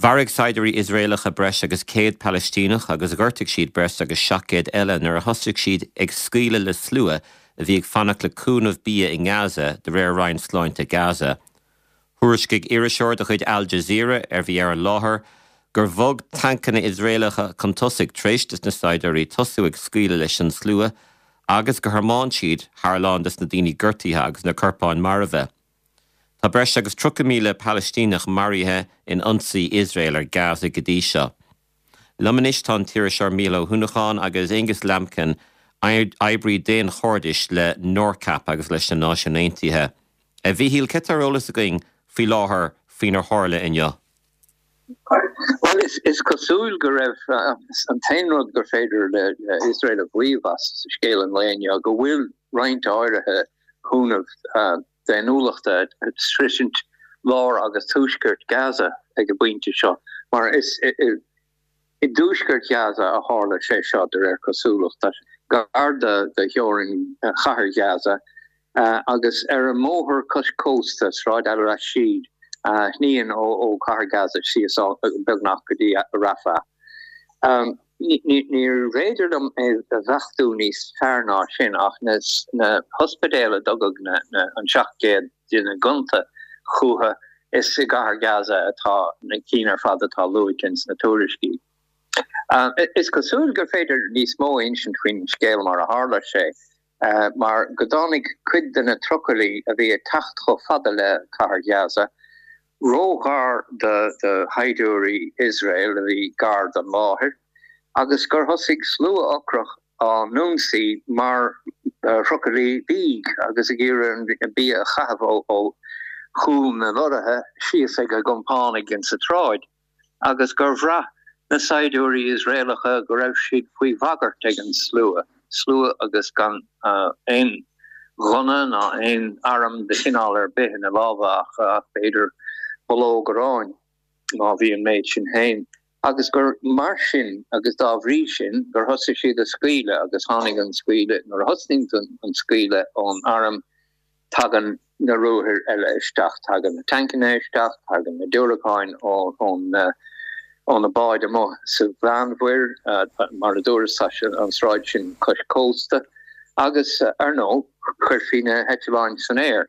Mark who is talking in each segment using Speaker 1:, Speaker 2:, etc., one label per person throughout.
Speaker 1: Mharaigh saighdiúirí Iosraelacha breis agus 100 Palaistíneach agus ghortaigh siad breis agus 700 eile nuair a thosaigh siad ag scaoileadh le slua a bhí ag fanacht le cúnamh bia i nGaza, de réir Roinn Sláinte Gaza. Thuairiscigh iriseoir de chuid Al Jazeera, a bhí ar an láthair, gur bhog tancanna Iosraelacha chun tosaigh tar éis dos na saighdiúirí tosú ag scaoileadh leis an slua agus gur thiomáin siad thar a lán des na daoine gortaithe agus na corpáin marbha. Tá breis agus 30,000 Palaistíneach maraithe in ionsaí Iosrael ar Gaza go dtí seo. Liom anois tá an t-iriseoir Mícheál Ó hUanacháin agus Aonghus Lambkin, oibrí daonchairdis le NORCAP agus leis na Náisiúin Aontaithe. A Mhíchíl, céard tá ar eolas againn faoi láthair faoinar tharla inniu?
Speaker 2: Bhuel, is cosúil go raibh an t-aon rud gur féidir le Iosrael a mhaíomh as scéal an lae inniu go bhfuil roinnt áirithe cúnamh daonnúlachta ag sroisint lár agus tuaisceart Gaza ag an bpointe seo, mar is i dtuaisceart Ghaza a tharla sé seo de réir cosúlachta, gar do theorainn chathair Ghaza agus ar an mbóthar cois cósta, Sráid Al-Rashid, a shníonn ó chathair Gaza síos beagnach go dtí Rafah. Níorbh fhéidir liom é a bheachtú níos fearr ná sin ach na hospidéil a dtugadh an 700 duine gonta chucu, is i gcathair Gaza atá na cinn ar fad atá luaite ins na tuairiscí. Is cosúil gur féidir níos mó a insint faoin scéal mar a tharla sé, mar go dtáinig cuid de na trucailí a bhí ag teacht chomh fada le cathair Ghaza róghar do shaighdiúirí Iosrael a bhí gar don láthair agus gur thosaigh slua ocrach á n-ionsaí mar thrucailí bídh agus ag iarraidh an bia a chaitheamh ó chúl na lorraithe síos ag a gcompánaigh insa tsráid. agus gur bhraith na saighdiúirí Iosraelacha go raibh siad faoi bhagairt ag an slua, slua agus gan aon ghunna ná aon arm de chineál ar bith ina lámha ach b'fhéidir bulóg aráin, má bhí an méid sin féin, agus gur mar sin agus dá bhrí sin gur thosaigh siad ag scaoileadh agus tháinig an scaoileadh, nuair a thosnaíonn an scaoileadh ón arm, Tagann na ruathair eile isteach, tagann na tancanna isteach, tagann na diúracáin ó na báid amuigh sa Mheánmhuir, mar a dúras, tá an sráid sin cois cósta, agus ar ndóigh, chuirfí na heitleáin san aer.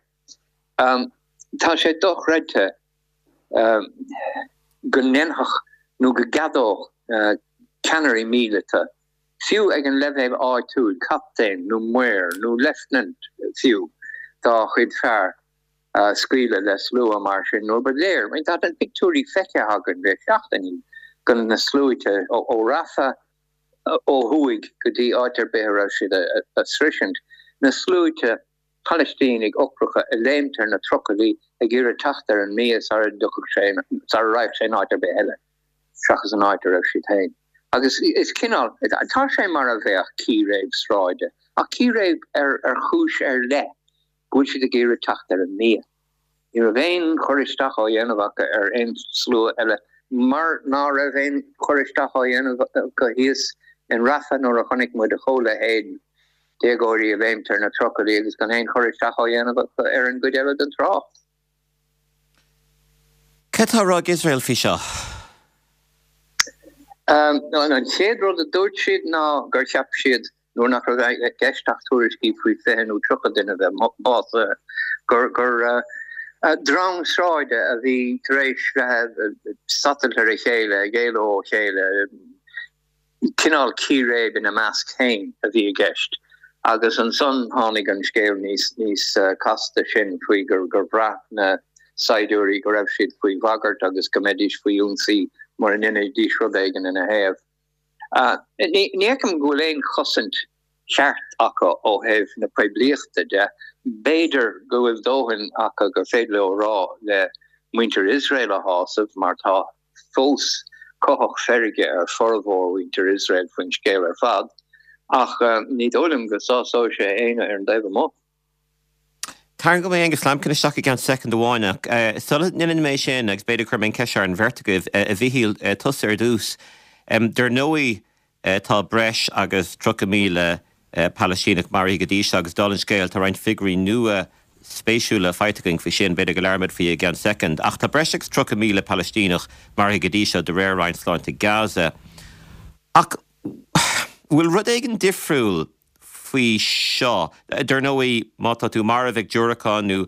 Speaker 2: Tá sé dochreidte go ndéanfadh nó go gceadódh ceannairí míleata fiú ag an leibhéal áitiúil, captaen nó maor nó leifteanant fiú, dá chuid fear scaoileadh le slua mar sin nuair ba léir, tá na pictiúirí feicthe againn le seachtainí, de na sluaite ó Rafah ó thuaidh go dtí áit ar bith a raibh siad a sroisint, na sluaite Palaistínigh ocracha ag léimt ar na trucailí ag iarraidh teacht ar an mbia sara dtiocfadh sé, sara raghadh sé in áit ar bith eile seachas an áit a raibh siad féin. Agus is cineál, tá sé mar a bheadh círéib sráide, ach círéib ar ar chúis ar leith, go bhfuil siad ag iarraidh teacht ar an mbia. Ní raibh aon chur isteach á dhéanamh acu ar aon slua eile, mar ná raibh aon chur isteach á dhéanamh acu thíos in Rafah nuair a chonaic muid a chomhleithéid, déagóirí ag léimt ar na trucailí agus gan aon chur isteach á dhéanamh acu ar an gcuid eile den trácht.
Speaker 1: Cad tá á rá ag Iosrael faoi seo?
Speaker 2: An chéad rud a dúirt siad ná gur cheap siad nuair nach raibh i gceist ach tuairiscí faoi 20 nó 30 duine a bheith básaithe, gur drong sráide a bhí tar éis bheith ag satailt ar a chéile, ag éalú ó chéile, cineál círéib ina measc féin a bhí i gceist. Agus ansan tháinig an scéal níos níos casta sin faoi gur bhraith na saighdiúirí go raibh siad faoi bhagairt agus go mbeidís faoi ionsaí mura ndéanfaidís rud éigin ina thaobh. Ní fheicim go bhfuil aon chosaint cheart acu ó thaobh na poiblíochta de. B'fhéidir go bhfuil dóthain acu gur féidir leo a rá le muintir Iosrael a shásamh, mar tá fós cuthach feirge ar formhór mhuintir Iosrael faoin scéal ar fad, ach ní dóigh liom go sásóidh sé éinne ar an dtaobh amuigh.
Speaker 1: Tarraingeoidh mé Aonghus Lambkin isteach i gceann soicind amháin ach sula ndéanann mé sin, agus b'fhéidir cuirfidh mé an cheist seo ar an bheirt agaibh, a Mhichíl, tusa ar dtús. Dar ndóigh tá breis agus 30,000 Palaistíneach maraithe go dtí seo agus dála an scéil tá roinnt figiúirí nua. spéisiúla faighte againn faoi sin, b'fhéidir go labhróimid faoi i gceann soicind. Ach tá breis agus 30,000 Palaistíneach maraithe go dtí seo de réir Roinn Sláinte Gaza. Ach bhfuil rud éigin difriúil faoi seo? Dar ndóigh, má tá tú marbh ag diúracán nó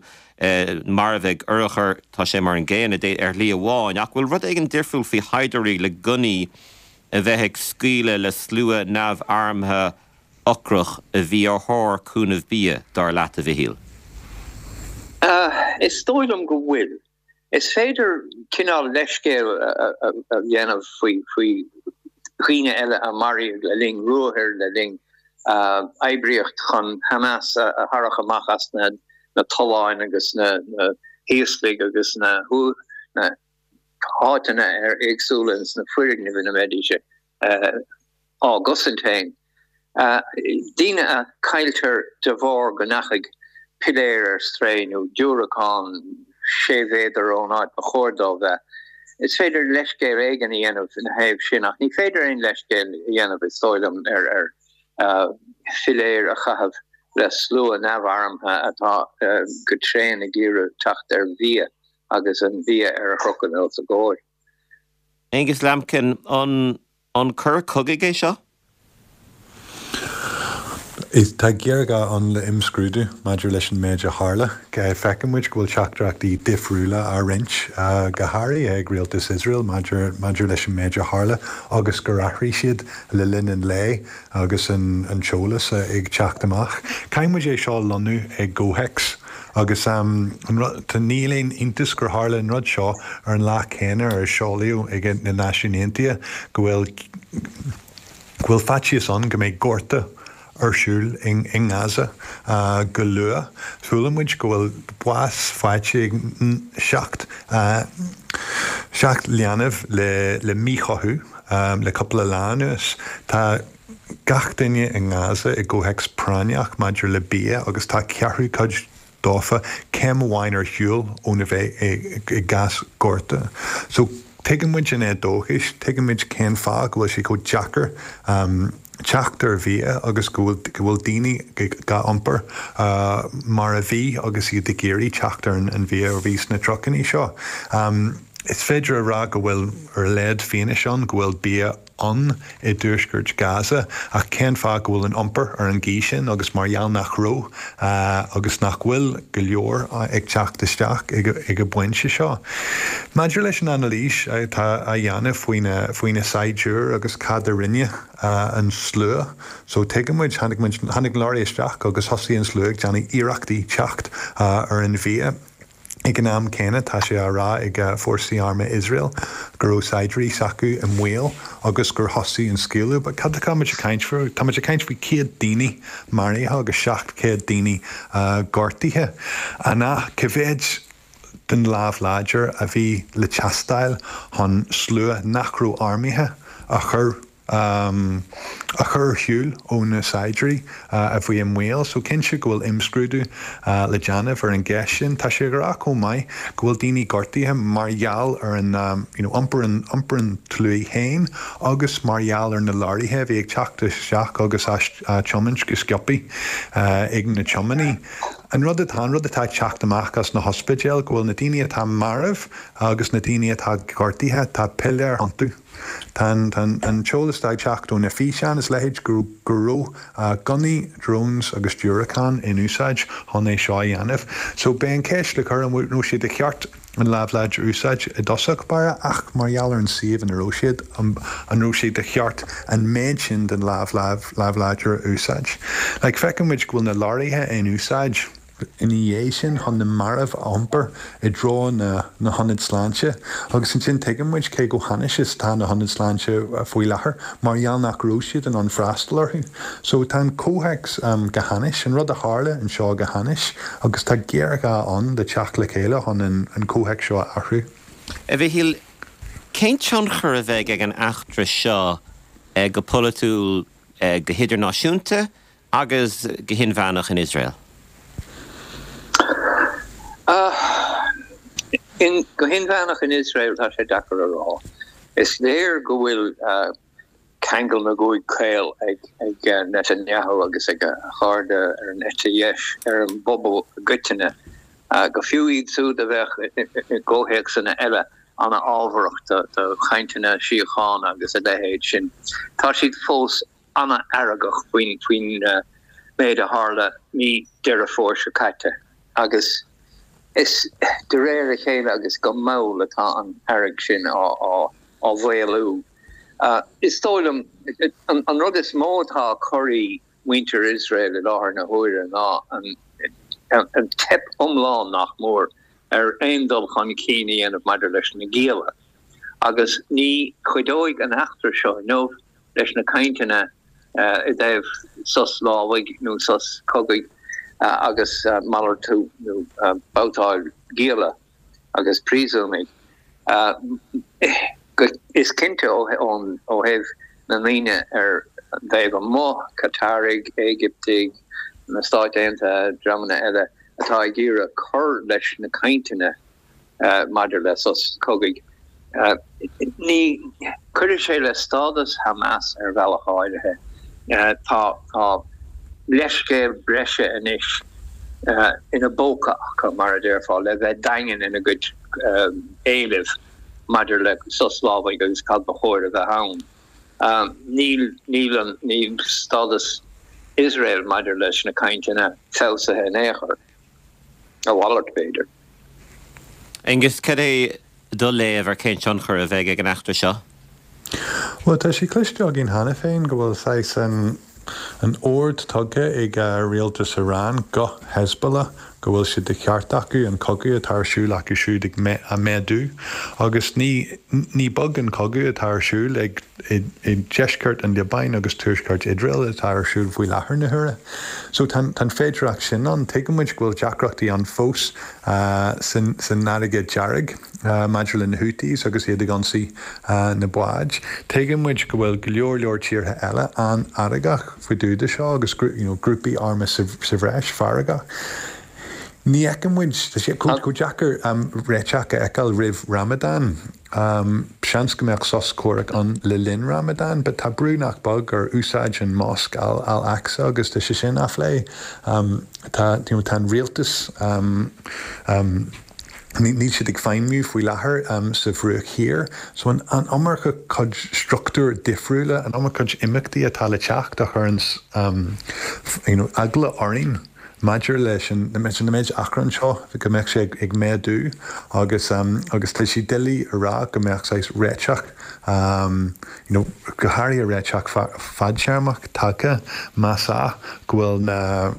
Speaker 1: marbh ag urchar, tá sé mar an gcéanna ar shlí amháin. Ach bhfuil rud éigin difriúil faoi shaighdiúirí le gunnaí a bheith ag scaoileadh le slua neamharmtha ocrach a bhí ar thóir cúnamh bia, dar leat, a Mhichíl?
Speaker 2: Is dóigh liom go bhfuil. Is féidir cineál leithscéal a dhéanamh faoi dhaoine eile a maraíodh le linn ruathair, le linn oibríocht chun Hamas a tharrac amach as na tolláin agus na híoslaigh agus na háiteanna éagsúla ins na foirgnimh ina mbeidís á gcosaint féin. Daoine a cailltear de bharr go ndeachaigh piléar ar strae nó diúracán sé mhéadar ón áit ba chóir dó bheith. Is féidir leithscéal éigin a dhéanamh ina thaobh sin ach ní féidir aon leithscéal a dhéanamh, is dóigh liom, ar philéir a chaitheamh le slua neamharmtha atá go tréan ag iarraidh teacht ar bhia agus an bia ar a chrochadh os a gcomhair.
Speaker 1: Angus Lambkin, an An coir cogaidh é seo?
Speaker 3: Tá géarghá ann le imscrúdú maidir leis an méid a tharla. Feiceann muid go bhfuil teachtaireachtaí difriúla á roinnt, go háirithe ag rialtas Iosrael maidir maidir leis an méid a tharla agus gur athraigh siad le linn an lae agus an t-eolas ag teacht amach. Caithfidh muid é seo a lonnú i gcomhthéacs. Agus an rud, níl aon iontas gur tharla an rud seo ar an lá céanna ar seolaíodh ag na Náisiúin Aontaithe go bhfuil go bhfuil faitíos ann go mbeidh gorta ar siúl i nGaza go luath. Chuala muid go bhfuil bás faighte ag 7 7 leanbh le le míchothú le cúpla lá anuas. Tá. gach duine i nGaza i gcomhthéacs práinneach maidir le bia agus tá ceathrú cuid dófa céim amháin ar shiúl óna bheith i gcás gorta. So tuigeann muid an éadóchas, tuigeann muid cén fáth go bhfuil sé chomh deacair teacht ar bhia agus go bhfuil go bhfuil daoine á n-iompar mar a bhí agus iad ag iarraidh teacht ar an bhia a bhí sna trucannaí seo. Is féidir a rá go bhfuil ar a laghad fianaise ann go bhfuil bia ann i dtuaisceart Gaza ach cén fáth go bhfuil an iompar ar an gcaoi sin agus mar gheall nach raibh agus nach bhfuil go leor ag teacht isteach ag an bpointe seo. Maidir leis an anailís atá á dhéanamh faoi na saighdiúir agus cad a rinne an slua so tuigeann muid, tháinig muid, tháinig an lorry isteach agus thosaigh an slua ag déanamh iarrachtaí teacht ar an bhia. Ag an am céanna, tá sé á rá ag fórsaí armtha Iosrael go raibh saighdiúirí s'acu i mbaol agus gur thosaigh an scaoileadh. But cad atá muid ag caint faoi? Tá muid ag caint faoi 100 daoine maraithe agus 700 daoine gortaithe. An ea? Cá mhéad den lámh láidir a bhí le teastáil chun slua nach raibh armtha a chur a chur ar shiúl ó na saighdiúirí a bhí i mbaol. So cinnte go bhfuil imscrúdú le déanamh ar an gceist sin. Tá sé ag rá chomh maith go bhfuil daoine gortaithe mar gheall ar an you know iompar an iompar an tslua féin agus mar gheall ar na leoraithe a bhí ag teacht isteach agus á tiomáint go sciobthaí ag na tiománaí. An rud atá an rud atá ag teacht amach as na hospidéil go bhfuil na daoine atá marbh agus na daoine atá gortaithe, tá piléir iontu. Tá an t-eolas atá ag teacht ó na físeáin is leithéid go raibh gunnaí, drones agus diúracáin in úsáid chun é seo a dhéanamh. So beidh an ceist le cur an raibh sé de cheart an lámh láidir a úsáid i dtosach báire ach mar gheall ar an suíomh ina raibh siad, an raibh sé de cheart an méid sin den lámh lámh láidir a úsáid? Like feiceann muid go bhfuil na leoraithe in úsáid. ina dhiaidh sin chun na mairbh a iompar i dtreo na hionad sláinte agus ansin tuigeann muid cé chomh hainnis is atá na hionaid sláinte faoi láthair mar gheall nach raibh siad in ann freastal orthu. So tá an comhthéacs go hainnis, an rud a tharla anseo go hainnis agus tá géarghá ann le teacht le chéile chun an comhthéacs seo a athrú.
Speaker 1: A Mhichíl, cén tionchar a bheidh ag an eachtra seo go polaitiúil, go hidirnáisiúnta Agus go hinmheánach in Iosrael?
Speaker 2: Go hinmheánach in Iosrael, tá sé deacair a rá. Is léir go bhfuil. Ceangal na gcúig caol ag Netanyahu agus ag a chairde ar an eite dheis ar an bpobal i gcoitinne, go fiú iad siúd a bheadh i gcomhthéacsanna eile an-fhábharach do chainteanna síochána agus a leithéid sin. Tá siad fós an-fheargach faoin méid a tharla mí Deireadh Fómhair seo caite agus is de réir a chéile agus go mall atá an fhearg sin á mhaolú. Is dóigh liom, an rud is mó atá ag corraí muintir Iosrael i láthair na huaire ná an teip iomlán, nach mór, ar aon dul chun cinn a dhéanamh maidir leis na gialla. Agus ní chuideoidh an eachtra seo inniu leis na cainteanna i dtaobh sos lámhaigh nó sos cogaidh agus malartú nó babhtáil gialla. agus príosúnaigh. Is cinnte ó thaobh na ndaoine ar an dtaobh amuigh, Cataraigh, Éigiptigh, na Stáit Aontaithe, dreamanna eile atá ag iarraidh cur leis na cainteanna maidir le sos cogaidh, ní chuirfidh sé le stádas Hamas ar bhealach áirithe. Tá leithscéal breise anois ina bpóca acu, mar a déarfá, le bheith daingean ina gcuid éilimh maidir le sos lámhaigh agus cad ba chóir a bheith ann. Níl, níl an, níl stádas Iosrael maidir leis na cainteanna feabhsaithe in aon chor. A mhalairt, b'fhéidir.
Speaker 1: Aengus, cad é do léamh ar cén tionchar a bheidh ag an eachtra seo?
Speaker 3: Bhuel, tá sé cloiste againn cheana féin go bhfuil saghas an an ord tugtha ag rialtas Iran go Hezbollah go bhfuil sé de cheart acu an cogadh atá ar siúl acu siúd ag a méadú agus ní ní beag an cogadh atá ar siúl ag i deisceart an Liobáin agus tuaisceart Iosrael atá ar siúl faoi láthair na huaire. So tá an féidireacht sin ann. Tuigeann muid go bhfuil deacrachtaí ann fós san fharraige dearg maidir le na Houthis agus iad ag ionsaí na báid. Tuigeann muid go bhfuil go leor leor tíortha eile an-fheargach faoi dtaobh de seo agus you know grúpaí armtha sa bhreis feargach. Ní fheiceann muid, tá sé chomh deacair réiteach a fheiceáil roimh Ramadan. Seans go mbeadh sos comhraic ann le linn Ramadan, but tá brú nach beag ar úsáid an mosc Al Al-Aqsa agus tá sé sin á phlé. Tá, you know, tá an rialtas, níl siad ag feidhmiú faoi láthair sa Bhruach Thiar. So an an iomarca cuid struchtúir difriúla, an iomarca cuid imeachtaí atá le teacht a chuireann, you know, eagla orainn. Maidir leis an méid achrann seo, go mbeadh sé ag méadú agus agus tá sé doiligh a rá go mbeadh saghas réiteach, you know, go háirithe réiteach fadtéarmach tagtha más ea go bhfuil na,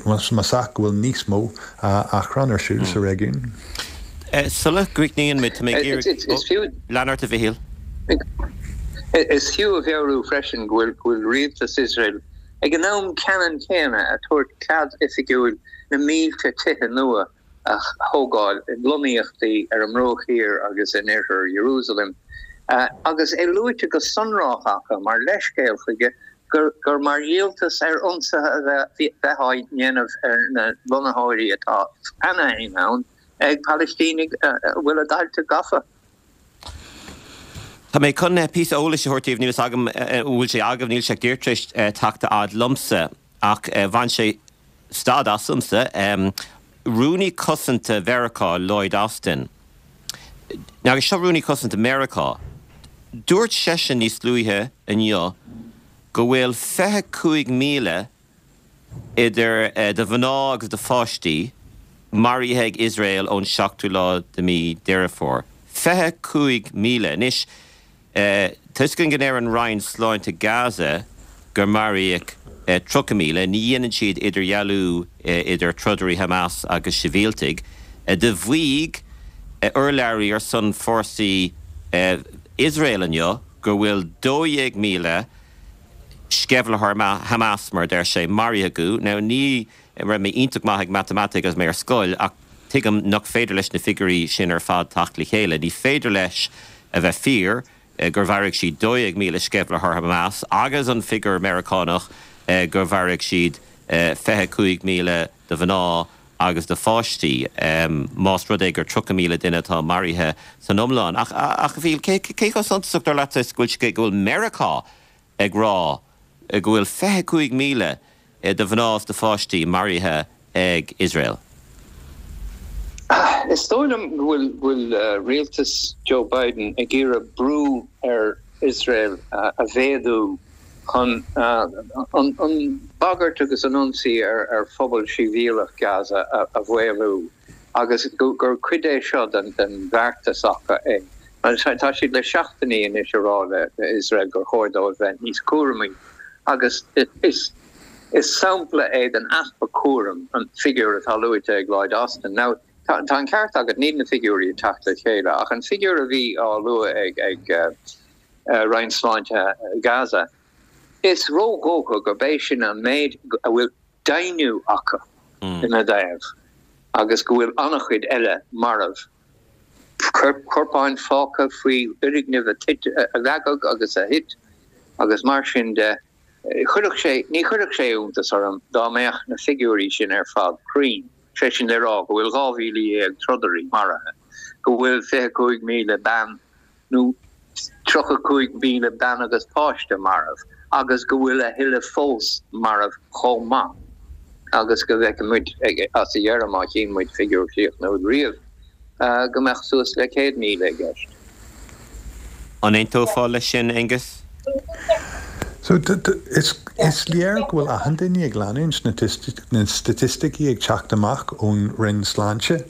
Speaker 3: más ea go bhfuil níos mó achrann ar siúl sa réigiún.
Speaker 1: Sula gcríochnaíonn muid, tá mé ag iarraidh, lean ort a Mhichíl.
Speaker 2: Is fiú a mheabhrú freisin go bhfuil rialtas Iosrael Ag an am ceannann céanna ag tabhairt cead oifigiúil na mílte tithe nua a thógáil i lonnaíochtaí ar an mBruach Thiar agus in oirthear Iarúsailéim, agus é luaite go sonrach acu mar leithscéal chuige gur mar dhíoltas ar ionsaithe a bheith á ndéanamh ar na lonnaitheoirí atá cheana féin ann ag Palaistínigh a bhfuil a dtailte gafa.
Speaker 1: Tá mé chun píosa eolais a thabhairt daoibh, níl fhios agam an bhfuil sé agaibh, níl sé ach díreach tar éis teacht a fhad liomsa, ach bhain sé stad asamsa. Rúnaí Cosanta Mheiriceá, Lloyd Austin, agus seo Rúnaí Cosanta Mheiriceá, dúirt seisean níos luaithe inniu go bhfuil 25,000 idir de mhná agus de pháistí, maraithe ag Iosrael ón seachtú lá de mí Deireadh Fómhair. 25,000. Anois, tá fhios againn go ndeir an Roinn Sláinte Gaza gur maraíodh 30,000. Ní dhéanann siad idirdhealú idir trodairí Hamas agus sibhialtaigh. Do mhaígh urlabhraí ar son fórsaí Iosrael inniu go bhfuil 12,000 sceimhlitheoir Hamas, mar a deir sé, maraithe acu. Now, ní raibh mé iontach maith ag matamaitic agus mé ar scoil, ach tuigim nach féidir leis na figiúirí sin ar fad teacht le chéile. Ní féidir leis a bheith fíor gur mharaigh siad 12,000 sceimhlitheoir Hamas agus an figiúr Meiriceánach gur mharaigh siad 25,000 de mhná agus de pháistí, más rud é gur 30,000 duine atá maraithe san iomlán. Ach, a Mhichíl, cé chomh suntasach, dar leatsa, is go bhfuil Meiriceá. ag rá go bhfuil 25,000 de mhná is de pháistí maraithe ag Iosrael.
Speaker 2: Is dóigh liom go bhfuil rialtas Joe Biden ag iarraidh brú ar Iosrael a mhéadú chun an bhagairt agus an ionsaí ar phobal sibhialach Gaza a mhaolú agus gur cuid é seo den bheartas acu é. Tá siad le seachtainí anois ag rá le Iosrael gur chóir dóibh bheith níos cúramaí agus is sampla é den easpa cúraim an figiúr atá luaite ag Lloyd Austin. Now, tá an ceart agat, níl na figiúirí ag teacht le chéile, ach an figiúr a bhí á lua ag Roinn Sláinte Gaza, is ródhócha gurb é sin an méid a bhfuil deimhniú acu ina dtaobh agus go bhfuil an-chuid eile marbh, corpáin fágtha faoi fhoirgnimh a leagadh agus a thit agus mar sin de. Chuirfeadh sé, ní chuirfeadh sé iontas orm dá mbeadh na figiúirí sin ar fad cruinn, sé sin le rá go bhfuil 12,000 trodairí maraithe, go bhfuil 25,000 bean nó 35,000 bean agus páiste marbh agus go bhfuil a thuilleadh fós marbh chomh maith agus go bhfeicfidh muid as a dheireadh, má chíonn muid figiúr críochnúil riamh, go mbeadh suas le 100,000 i gceist.
Speaker 1: An aontófá leis sin, Aengus?
Speaker 3: So, is léir go bhfuil achan duine ag leanúint na staitisticí ag teacht amach ón Roinn Sláinte.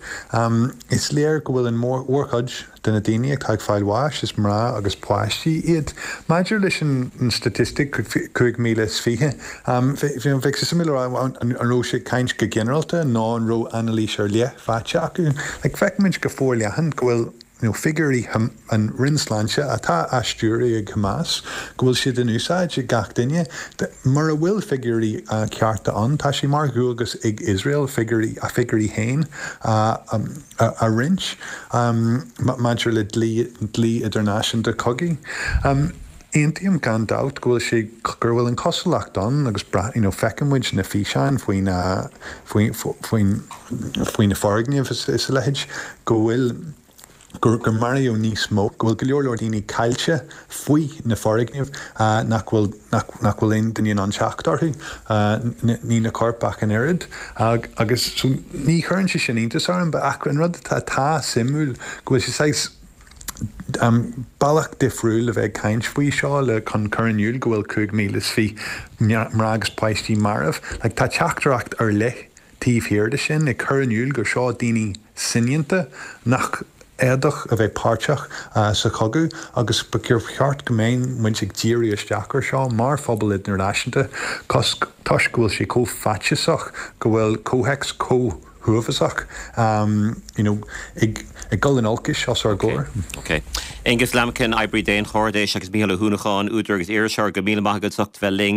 Speaker 3: Is léir go bhfuil an mhórchuid de na daoine atá ag fáil bháis, is mná agus páistí iad. Maidir leis an staitistic 5,020, bheadh sé suimiúil a rá an raibh sé ag caint go ginearálta nó an raibh anailís ar leith faighte acu. Like, feicimid go forleathan go bhfuil nó figiúirí an Roinn Sláinte atá á stiúradh ag Hamas, go bhfuil siad in úsáid ag gach duine. Mura bhfuil figiúirí cearta ann, tá sé mar dhualgas ag Iosrael figiúirí, a figiúirí féin a roinnt maidir le dlí, dlí idirnáisiúnta cogaidh. Aontaím gan dabht go bhfuil sé, gur bhfuil an chosúlacht ann agus you know feiceann muid na físeáin faoi na, faoi, faoin, faoi na foirgnimh is a leithéid, go bhfuil, gur, gur maraíodh níos mó, go bhfuil go leor leor daoine caillte faoi na foirgnimh nach bhfuil, nach, nach bhfuil aon duine in ann teacht orthu, ní na coirp ach an oiread. Agus so ní chuireann sé sin iontas orm, ach an rud atá, atá suimiúil go bhfuil sé saghas, Bealach difriúil a bheith ag caint faoi seo le chun cur in iúl go bhfuil 5,020 mná agus páistí marbh. Like tá teachtaireacht ar leith taobh thiar de sin, ag cur in iúl gur seo daoine soineanta nach fhéadfadh a bheith páirteach sa chogadh agus ba cheart go mbeadh muid ag díriú isteach ar seo mar phobal idirnáisiúnta toisc go bhfuil sé chomh faitíosach go bhfuil comhthéacs chomh huafásach you know ag dul in olcais os ár gcomhair.
Speaker 1: Ok. Aengus Lambkin, oibrí daonchairdis agus Mícheál Ó hUanacháin, údar agus iriseoir, go raibh míle maith agat as ucht bheith linn.